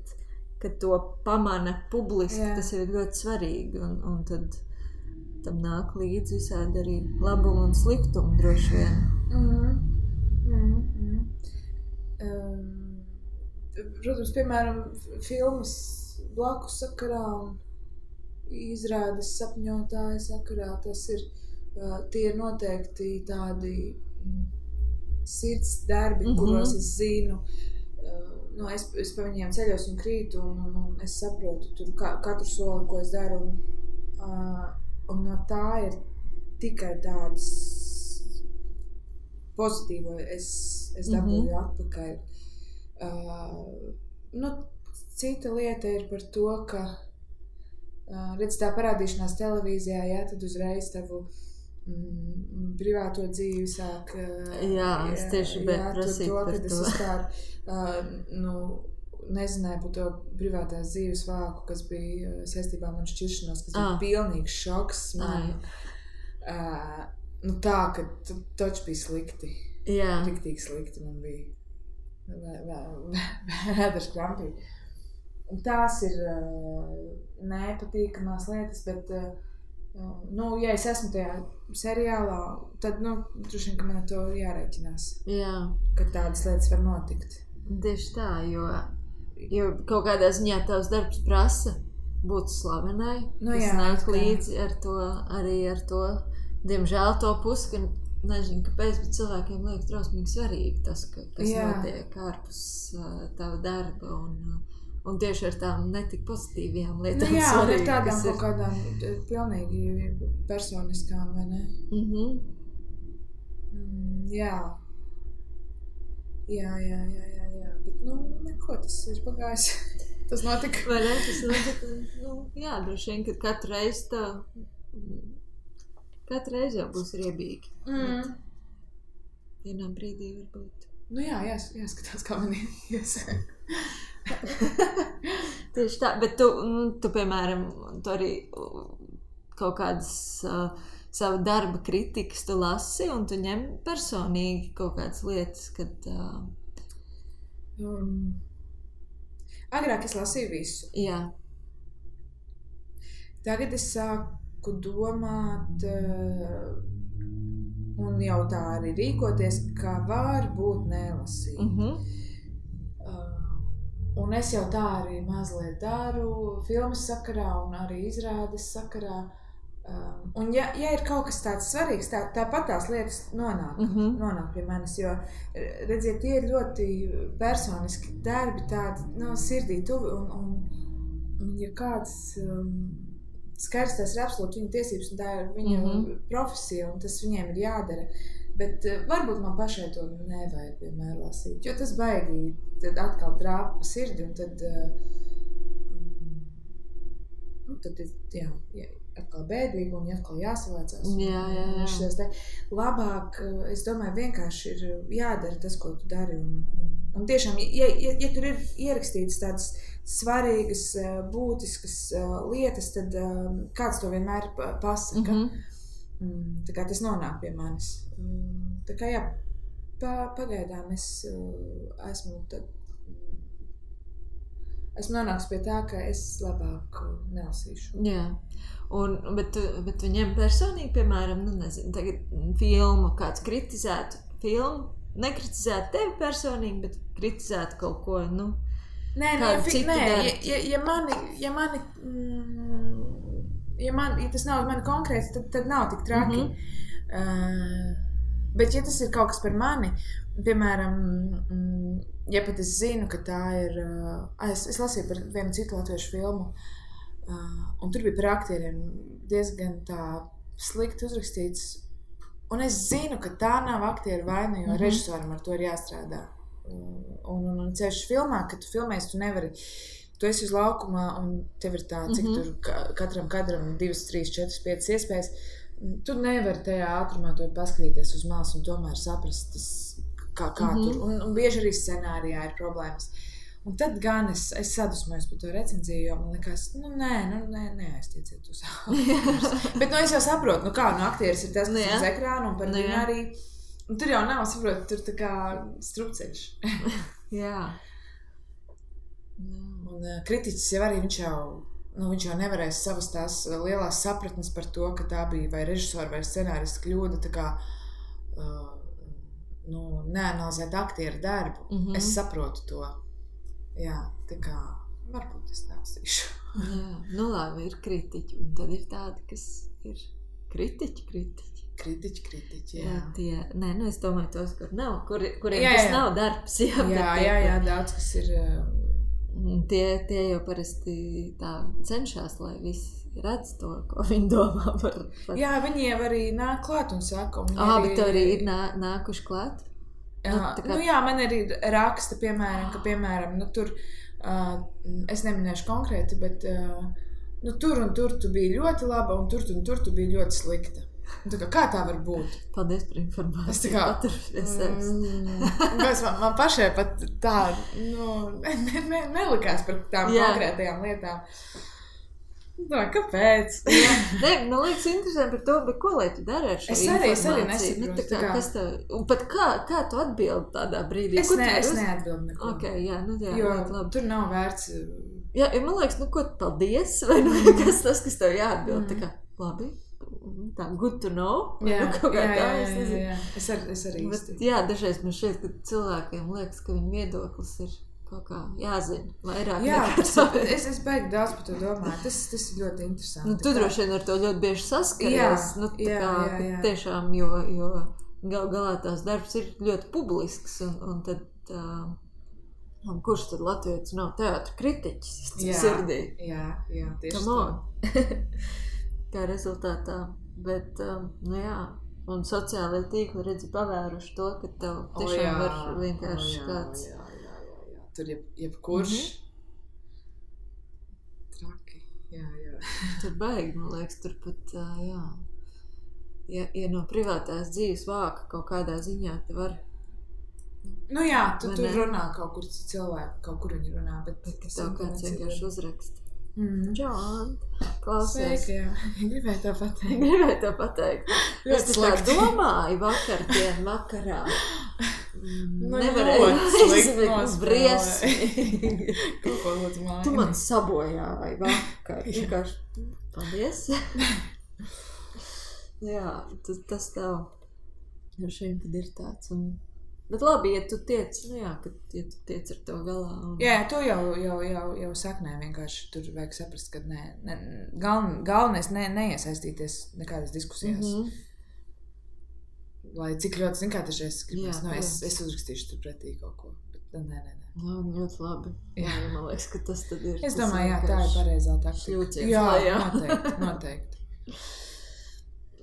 to pamana publiski, tas ir ļoti svarīgi, un tad tam nāk līdz visādi arī labumu un sliktumu droši vien. Protams, piemēram, filmas blakus sakarā un izrādes sapņotāja sakarā, tie ir noteikti tādi sirds darbi, kuros es zinu, es pa viņiem ceļos un krītu, un es saprotu tur katru soli, ko es daru, un no tā ir tikai tādas pozitīvo es dabūju atpakaļ. Cita lieta ir par to, ka redz tā parādīšanās televīzijā, tad uzreiz tavu privāto dzīvi sāk es tieši prasīt par to. Es nezināju par to privātās dzīves vāku, kas bija saistībā ar manu šķiršanos, kas bija pilnīgs šoks man. Tā, ka taču bija slikti. Riktīgi slikti man bija. Vēders krampīgi. Un tās ir nepatīkamās lietas, bet ja es esmu tajā seriālā, tad, droši vien, ka man ar to jārēķinās. Ka tādas lietas var notikt. Tieši tā, jo kaut kādā ziņā tavs darbs prasa būt slavenai. Tas nāk līdzi ar to, diemžēl to pusi, ka nezinu, kāpēc, bet cilvēkiem liekas drausmīgi svarīgi tas, kas notiek ārpus tava darba un tieši ar tām netik pozitīvajām lietām svarīgi. Ar tādām kaut kādām pilnīgi personiskām, vai ne? Jā. Bet, neko, tas ir pagājis. Tas notika. Vai ne? Tas notika. Droši vien, ka katru reizi jau būs riebīgi. Vienā brīdī varbūt. Jāskatās, kā man ies. Tieši tā, bet tu piemēram, tu arī kaut kādas savu darba kritikas tu lasi un tu ņem personīgi kaut kādas lietas, kad... Agrāk es lasīju visu. Jā. Tagad es sāku domāt un jau tā arī rīkoties, ka var būt nelasīt. Un es jau tā arī mazliet daru filmas sakarā un arī izrādes sakarā. Un ja ir kaut kas tāds svarīgs, tāpat tās lietas nonāk pie manis, jo, redziet, tie ir ļoti personiski darbi, tādi sirdī tuvi, un ja kāds skaidrs, tas ir absolūti viņa tiesības, un tā ir viņa profesija, un tas viņiem ir jādara, bet varbūt man pašai to nevajag vienmēr lasīt, jo tas baigi tad atkal trāpa pa sirdi, un tad atkal bēdīgi un atkal jāsavācās. Jā. Labāk, es domāju, vienkārši ir jādara tas, ko tu dari. Un tiešām, ja tur ir ierakstītas tādas svarīgas, būtiskas lietas, tad kāds to vienmēr pasaka. Tā kā tas nonāk pie manis. Tā kā jā, pagaidām es esmu nonāks pie tā, ka es labāk nelasīšu. Jā, bet viņiem personīgi, piemēram, nezinu, tagad filmu kāds kritizētu filmu, nekritizētu tevi personīgi, bet kritizētu kaut ko, ja tas nav uz mani konkrēts, tad nav tik traki. Bet ja tas ir kaut kas par mani, piemēram, ja pat es zinu, ka tā ir... Es lasīju par vienu citu latviešu filmu, un tur bija par aktieriem diezgan tā slikti uzrakstīts. Un es zinu, ka tā nav aktieru vaina, jo režisoram ar to ir jāstrādā. Un ceļš filmā, kad tu filmēsi, tu nevari... Tu esi uz laukumā, un tev ir tā, cik tur katram kadram 2, 3, 4, 5 iespējas. Tu nevari tajā ātrumā to paskatīties uz malas un tomēr saprast, tas, kā tur. Un bieži arī scenārijā ir problēmas. Un tad gan es sadusmojos par to recenziju, jo man likās, neaiztieciet uz aktierus. Bet es jau saprotu, aktieris ir tas, kas ir uz ekrāna, un par viņu arī. Un tur jau nav, saprotu, tur tā kā strupceļš. Jā. Un kritiķis jau arī viņš jau nevarēs savas tās lielās sapratnes par to, ka tā bija vai režisora vai scenārista kļūda, tā kā neanalizēt aktieru darbu. Es saprotu to. Jā, tā kā varbūt es lasīšu. Jā, labi, ir kritiķi, un tad ir tādi, kas ir kritiķi. Kritiķi, jā. Es domāju tos, kuriem tas nav darbs. Jā, daudz, kas ir... Tie jau parasti tā cenšas, lai visi redz to, ko viņi domā par... Jā, viņi jau arī nāk klāt un saka. Bet tev arī ir nākuši klāt? Man arī raksta, piemēram, tur, es neminēšu konkrēti, bet tur un tur tu biji ļoti laba, un tur tu biji ļoti slikta. Kā tā var būt? Paldies par informāciju. Es tā kā... man pašai pat tā, nelikās par tām konkrētajām lietām. Kāpēc? Man liekas interesanti par to, bet ko lai tu dari ar šo informāciju? Es arī nesaprotu. Un pat kā tu atbildi tādā brīdī? Es neatbildu neko. Jo tur nav vērts... Jā, man liekas, ko paldies, vai kas tev jāatbild? Tā kā, labi, tā good to know. Jā, es nezinu. Jā. Es arī īsti. Jā, dažreiz man šeit, ka cilvēkiem liekas, ka viņu viedoklis ir kaut kā jāzina vairāk. Jā, es beigtu daudz par to domāju. Tas ir ļoti interesanti. Tu droši vien ar to ļoti bieži saskaries. Tiešām, jo galā tās darbs ir ļoti publisks, un tad... kurš tad latvietis nav teātra kritiķis sirdī? Jā, tieši tā. Kā rezultātā. Bet, un sociālajie tīkli redzi pavēruši to, ka tev tiešām var vienkārši kāds... Jā. Tur jebkurš traki. Jā. Tur baigi, man liekas, tur pat, ja no privātās dzīves vāka kaut kādā ziņā, te var... tu tur runā kaut kur cilvēki, kaut kur viņi runā, bet tev kāds vienkārši uzraksta. Džon, klausies. Sveiki, jā. Gribēju to pateikt. Es tā domāju vakarā. nevarēju aizsmēt briesmīgi. Kaut ko lūdzu māju. Tu man sabojāji vakar. Vienkārši, paldies. Jā, tas tev ar šiem tad ir tāds. Bet labi, ja tu tiec, ja tu tiec ar to galā. Jā, to jau saknē vienkārši tur vajag saprast, ka galvenais neiesaistīties nekādas diskusijās. Lai cik ļoti, zin kā tašais gribas, es uzrakstīšu tur pretī kaut ko, bet nē. Ļoti labi. Jā, man liekas, ka tas tad ir. Es domāju, tā ir pareizā taktika. Šļūciens. Jā, noteikti.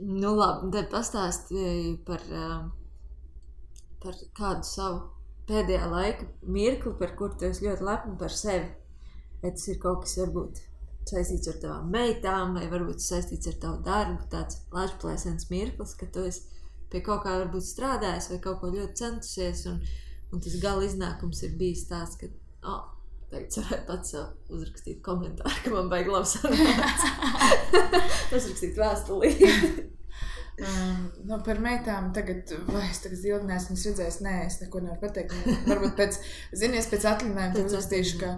Nu labi, te pastāstīju par kādu savu pēdējā laika mirkli, par kur tu esi ļoti lepni par sevi. Vai tas ir kaut kas varbūt saistīts ar tavām meitām, vai varbūt saistīts ar tavu darbu, tāds lažplēsens mirklis, ka tu esi pie kaut kā varbūt strādājis vai kaut ko ļoti centusies, un tas gala iznākums ir bijis tāds, ka, tagad varētu pats sev uzrakstīt komentāru, ka man baigi labi sanāca. Uzrakstīt vēstulī. Par meitām tagad ilgi neesmu redzējis, es neko nevaru pateikt. Varbūt pēc atļinājuma uzrakstīšu, ka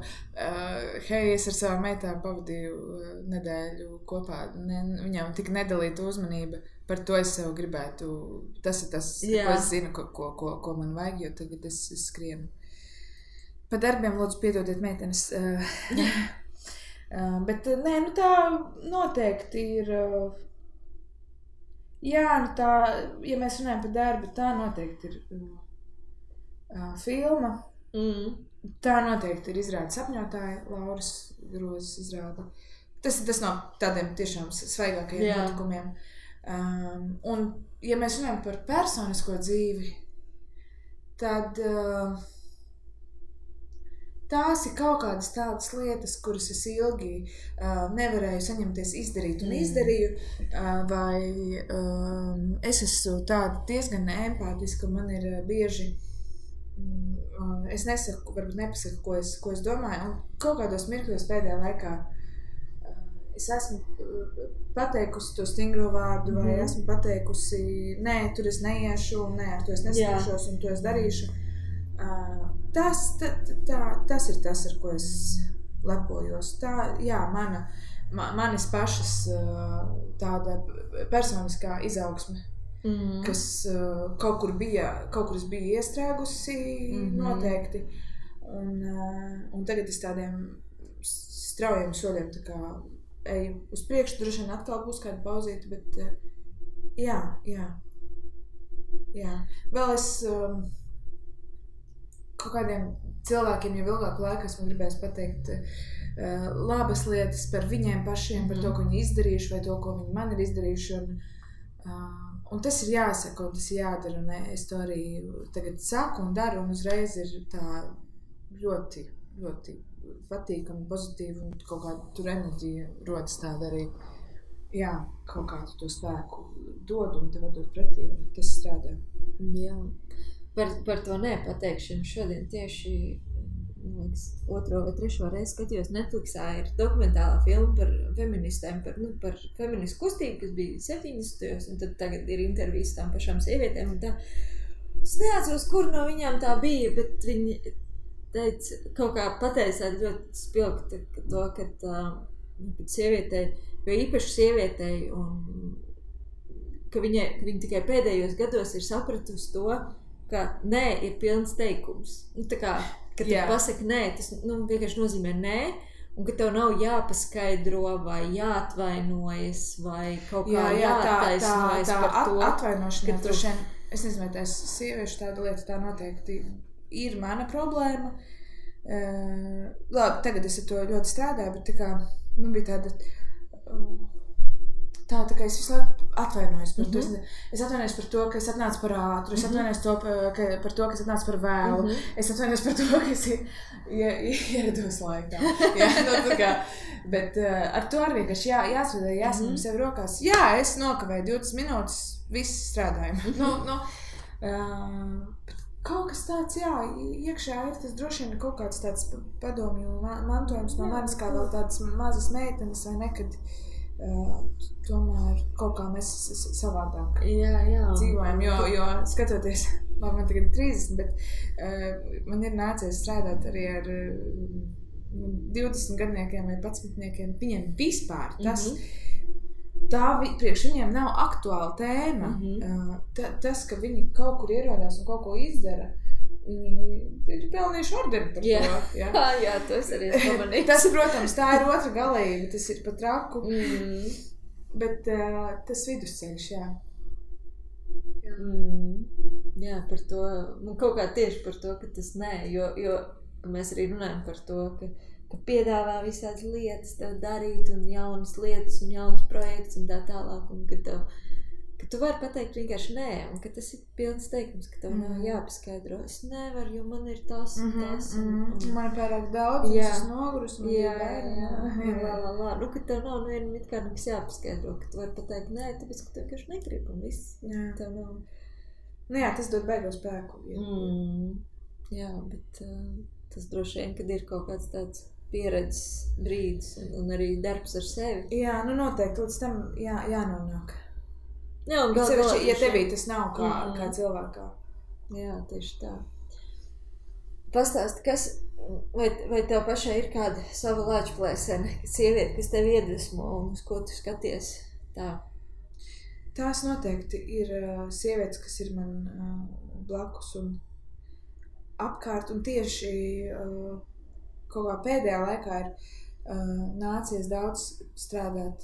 es ar savām meitām pavadīju nedēļu kopā. Viņām tik nedalīta uzmanība, par to es sev gribētu. Tas ir tas, ko es zinu, ko man vajag, jo tagad es skrienu. Pa darbiem lūdzu piedodiet meitenes. Bet tā noteikti ir. Jā, tā, ja mēs runājam par darbu, tā noteikti ir filma. Tā noteikti ir izrāda sapņotāja, Lauras Grozes izrāda. Tas no tādiem tiešām svaigākajiem notikumiem. Un, ja mēs runājam par personisko dzīvi, tad tās ir kaut kādas tādas lietas, kuras es ilgi nevarēju saņemties izdarīt un izdarīju, vai es esmu tāda diezgan empātiska, man ir bieži, es nesaku, varbūt nepasaku, ko es domāju, un kaut kādos mirkļos pēdējā laikā es esmu pateikusi to stingro vārdu, vai esmu pateikusi, nē, tur es neiešu, nē, ar to es neskaršos un to es darīšu. Tas ir tas, ar ko es lepojos. Manis pašas tāda personiskā izaugsme, kas kaut kur es biju iestrēgusi noteikti. Un tagad es tādiem straujiem soļiem tā kā eju uz priekšu, droši vien atkal būs kāda pauzīte, bet jā. Vēl es kaut kādiem cilvēkiem jau ilgāku laiku esmu gribējis pateikt labas lietas par viņiem pašiem, par to, ko viņi izdarījuši vai to, ko viņi man ir izdarījuši. Un tas ir jāsaka un tas ir jādara. Un es to arī tagad saku un daru un uzreiz ir tā ļoti, ļoti patīkami, pozitīvi un kaut kāda tur enerģija rodas tāda arī. Jā, kaut kādu to spēku dod un tev dod pretī un tas strādā. Jā. Par to nepateikšanu šodien tieši 2. vai 3. reizi skatījos Netflixā ir dokumentālā filma par feministēm, par feministu kustību, kas bija 70. un tad tagad ir intervijas tām pašām sievietēm un tā. Es neatceros, kur no viņām tā bija, bet viņi teica, kaut kā pateica ļoti spilgti to, ka sievietei, jo īpaši sievietei, un ka viņa tikai pēdējos gados ir sapratusi to, ka nē ir pilns teikums. Tā kā, kad tu pasaki nē, tas vienkārši nozīmē nē, un ka tev nav jāpaskaidro vai jāatvainojas vai kaut kā jātaisnojas par to. Atvainošana, droši vien, es nezinu, vai tās sieviešu tāda lieta, tā noteikti ir mana problēma. Labi, tagad es ar to ļoti strādāju, bet tā kā man bija tāda tā kā es visu laiku atvainojos par to. Es atvainojos par to, ka es atnācu par ātru, es atvainojos par to, ka es atnācu par vēlu, es atvainojos par to, ka es ierados laikā. Tā kā, bet ar to arī vienkārši jāsvedē, jāsaņem sev rokās. Jā, es nokavēju 20 minūtes, viss strādājumu. Kaut kas tāds, iekšā ir tas droši vien kaut kāds tāds padomju mantojums no manis, kā vēl tādas mazas meitenes vai nekad. Tomēr kaut kā mēs savādāk dzīvojam, jo skatoties man tagad 30, bet man ir nācies strādāt arī ar 20 gadniekiem vai 11-niekiem. Viņiem vispār tas, priekš viņiem nav aktuāla tēma. Tas, ka viņi kaut kur ierodās un kaut ko izdara, viņi ir pelnījuši ordeni par to. Jā, to es arī pamanīju. Tas, protams, tā ir otra galība, tas ir pat raku. Bet tas vidusceļš, jā. Jā, par to, kaut kā tieši par to, ka tas nē, jo mēs arī runājam par to, ka piedāvā visādas lietas tev darīt un jaunas lietas un jaunas projekts un tā tālāk, un ka tu vari pateikt vienkārši nē, un ka tas ir pilns teikums, ka tev nav jāpaskaidro. Es nevaru, jo man ir tas un tas. Man ir pārāk daudz, un es nogurus, man ir bērni. Nu, ka tev nav it kā nekas jāpaskaidro, ka tu vari pateikt nē, tāpēc, ka tev vienkārši negrib un viss. Tev nav. Nu jā, tas dod beigo spēku. Jā, bet tas droši vien, kad ir kaut kāds tāds pieredzes brīdis un arī darbs ar sevi. Jā, nu noteikti līdz tam jānonāk. Jā, un ja tevī tas nav kā cilvēkā. Jā, tieši tā. Pastāsti, vai tev pašai ir kāda sava lāčplēsene, sieviete, kas tev iedvesmo un uz ko tu skaties tā? Tās noteikti ir sievietes, kas ir man blakus un apkārt, un tieši kaut kā pēdējā laikā ir nācies daudz strādāt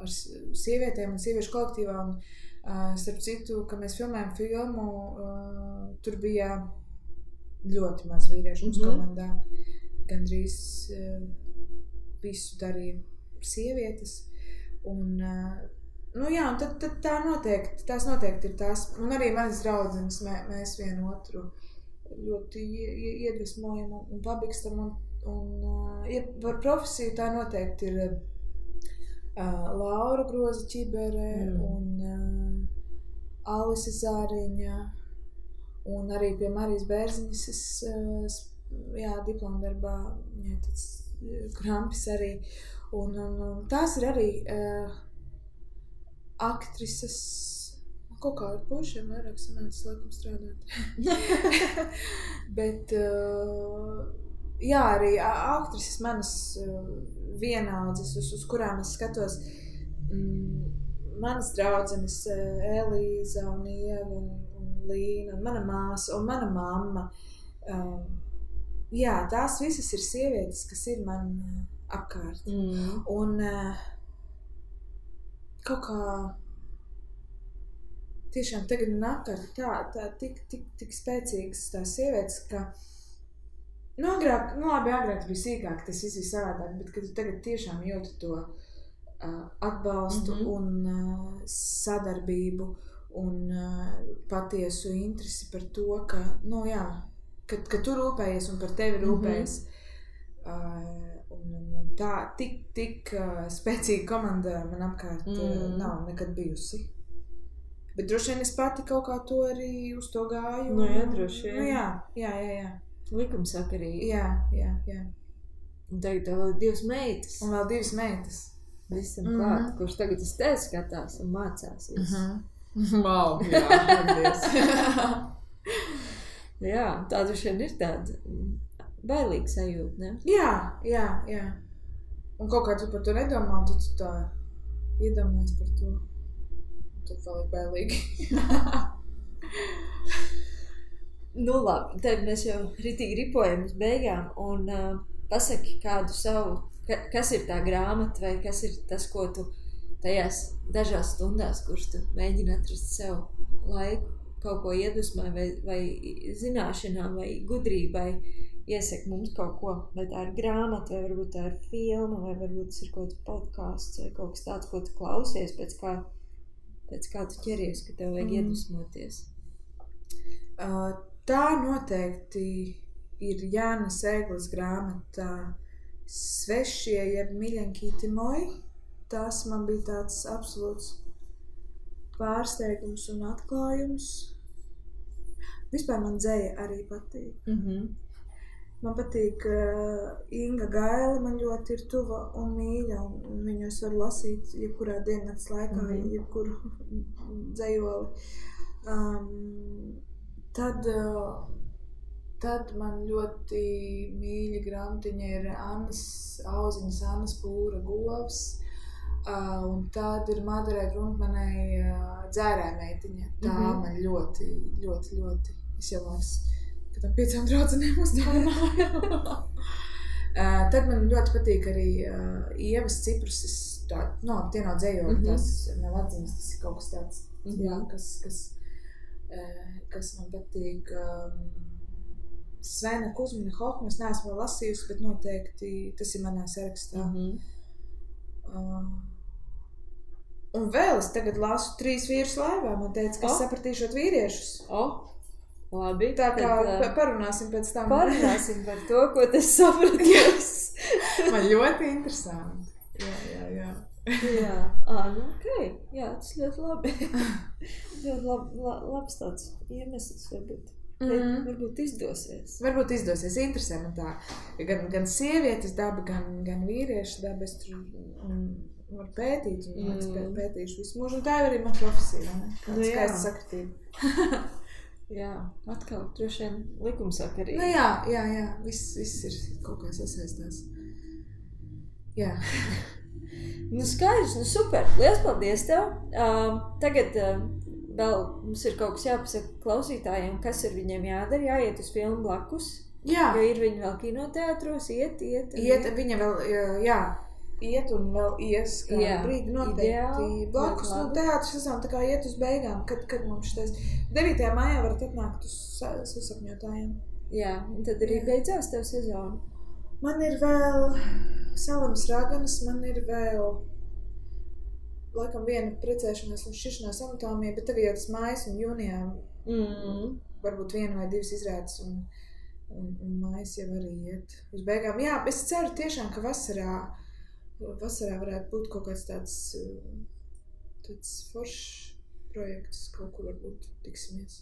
ar sievietēm un sieviešu kolektīvā, un starp citu, kad mēs filmējam filmu, tur bija ļoti maz vīriešu mums komandā. Gandrīz visu darīja sievietes, un nu jā, un tad tās noteikti ir tās, un arī manas draudzenes, mēs vienu otru ļoti iedvesmojam un pabikstam, un par profesiju tā noteikti ir Laura Groza Čibere un Alise Zāriņa, un arī pie Marijas Bērziņas es diplomdarbā, tāds Krampis arī, un tās ir arī aktrises, kaut kā ar pušiem vairāk sanācis laikam strādāt. Bet jā, arī aktrises manas vienaudzes, uz kurām es skatos, manas draudzenes Elīza un Ieva un Līna, un mana māsa un mana mamma. Jā, tās visas ir sievietes, kas ir man apkārt. Un kaut kā tiešām tagad man apkārt tā tik spēcīgas tās sievietes, ka agrāk bija sīkāk, tas viss bija savādāk, bet kad tu tagad tiešām jūti to atbalstu un sadarbību un patiesu interesi par to, ka, ka tu rūpējies un par tevi rūpējies. Un tā tik spēcīga komanda man apkārt nav nekad bijusi. Bet droši vien es pati kaut kā to arī uz to gāju. Nu jā, droši vien. Nu jā. Likumsakarīgi. Jā. Un tagad vēl 2 meitas. Un vēl 2 meitas. Visam klāt, kurš tagad uz tevi skatās un mācās visu. Wow, jā, paldies. Jā, tā droši vien ir tāda bailīga sajūta, ne? Jā. Un kaut kā tu par to nedomā, un tu tā iedomājies par to. Tad vēl ir bailīgi. Nu labi, tad mēs jau ritīgi ripojam uz beigām un pasaki kādu savu, kas ir tā grāmata vai kas ir tas, ko tu tajās dažās stundās, kurš tu mēģini atrast sev laiku, kaut ko iedvesmai vai zināšanām vai gudrībai iesaka mums kaut ko, vai tā ir grāmata, vai varbūt tā ir filma, vai varbūt tas ir kaut kāds podcasts vai kaut kas tāds, ko tu klausies, pēc kā tu ķeries, ka tev vajag iedvesmoties. Tā noteikti ir Jānis Ēglis grāmata Svešie jeb Miļankīti moji. Tas man bija tāds absolūts pārsteigums un atklājums. Vispār man dzeja arī patīk. Man patīk Inga Gaila, man ļoti ir tuva un mīļa, un viņus var lasīt jebkurā diennakts laikā, jebkuru dzejoli. Tad man ļoti mīļa grāmatiņa ir Annas Auziņas, Annas Pūra govs. Un tad ir Madarē Grundmanai Dzērē meitiņa. Tā man ļoti, ļoti, ļoti. Es jau liekas, ka tam 5 draudzenēm uzdāvināju. Tad man ļoti patīk arī Ievas Cipruses, tie nav dzējoli, tas nav atziņas, tas ir kaut kas tāds, jā, kas man patīk. Svena Kuzmina Hohma, es neesmu vēl lasījusi, bet noteikti tas ir manā sarakstā. Un vēl es tagad lasu 3 vīrus laivā, man teica, ka es sapratīšot vīriešus. Labi. Tā kā parunāsim pēc tam. Parunāsim par to, ko tas sapratīs. Man ļoti interesanti. Jā. Jā, nu okei. Jā, tas ļoti labi. Ļoti labs tāds iemesls varbūt. Varbūt izdosies. Varbūt izdosies. Interesē man tā. Gan sievietes daba, gan vīriešu daba. Es tur varu pētīt un pētīšu visu mūžu. Un tā ir arī man profesija, ne? Kāda skaista sakritība. Jā, atkal droši vien likumsakarīgi. Nu jā. Viss ir kaut kā sasaistās. Jā. Nu skaidrs, nu super. Liels paldies tev. Tagad vēl mums ir kaut kas jāpasaka klausītājiem, kas ir viņiem jādara, jāiet uz filmu blakus. Jā. Jo ir viņi vēl kinoteātros, iet. Viņa vēl, iet un vēl ies kādu brīdi noteikti blakus. Nu, teātris sezona tā kā iet uz beigām, kad mums šitais 9. maijā varat atnākt uz sasapņotājiem. Jā, un tad arī beidzās tev sezona. Man ir vēl Salamas raganas, man ir vēl laikam viena precēšanās un šķiršanās anatomija, bet tagad jau tas mājas un jūnijā varbūt 1 vai 2 izrādes un mājas jau arī iet uz beigām. Jā, es ceru tiešām, ka vasarā varētu būt kaut kāds tāds foršs projekts, kaut kur varbūt tiksimies.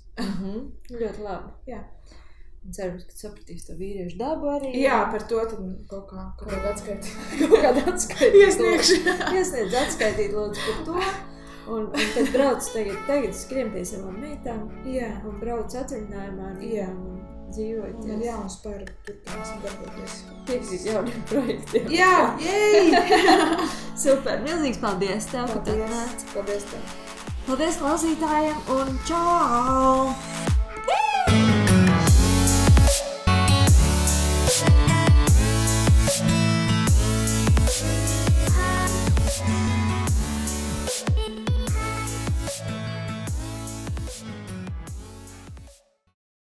Ļoti labi. Jā. Un ceru, ka sapratīs to vīriešu dabu arī. Jā, par to tad kaut kādu atskaitīt. Iesniedz atskaitīt lūdzu par to. Un tad brauc tagad skrien pie savām meitām. Jā. Un brauc atvaļinājumā. Jā. Un dzīvojot. Man jauns par turpināsim darboties. Piekstīt jauniem projektiem. Jā, jej! Super, milzīgs paldies tev, ka tu atnāc. Paldies tev. Paldies klausītājiem un čau!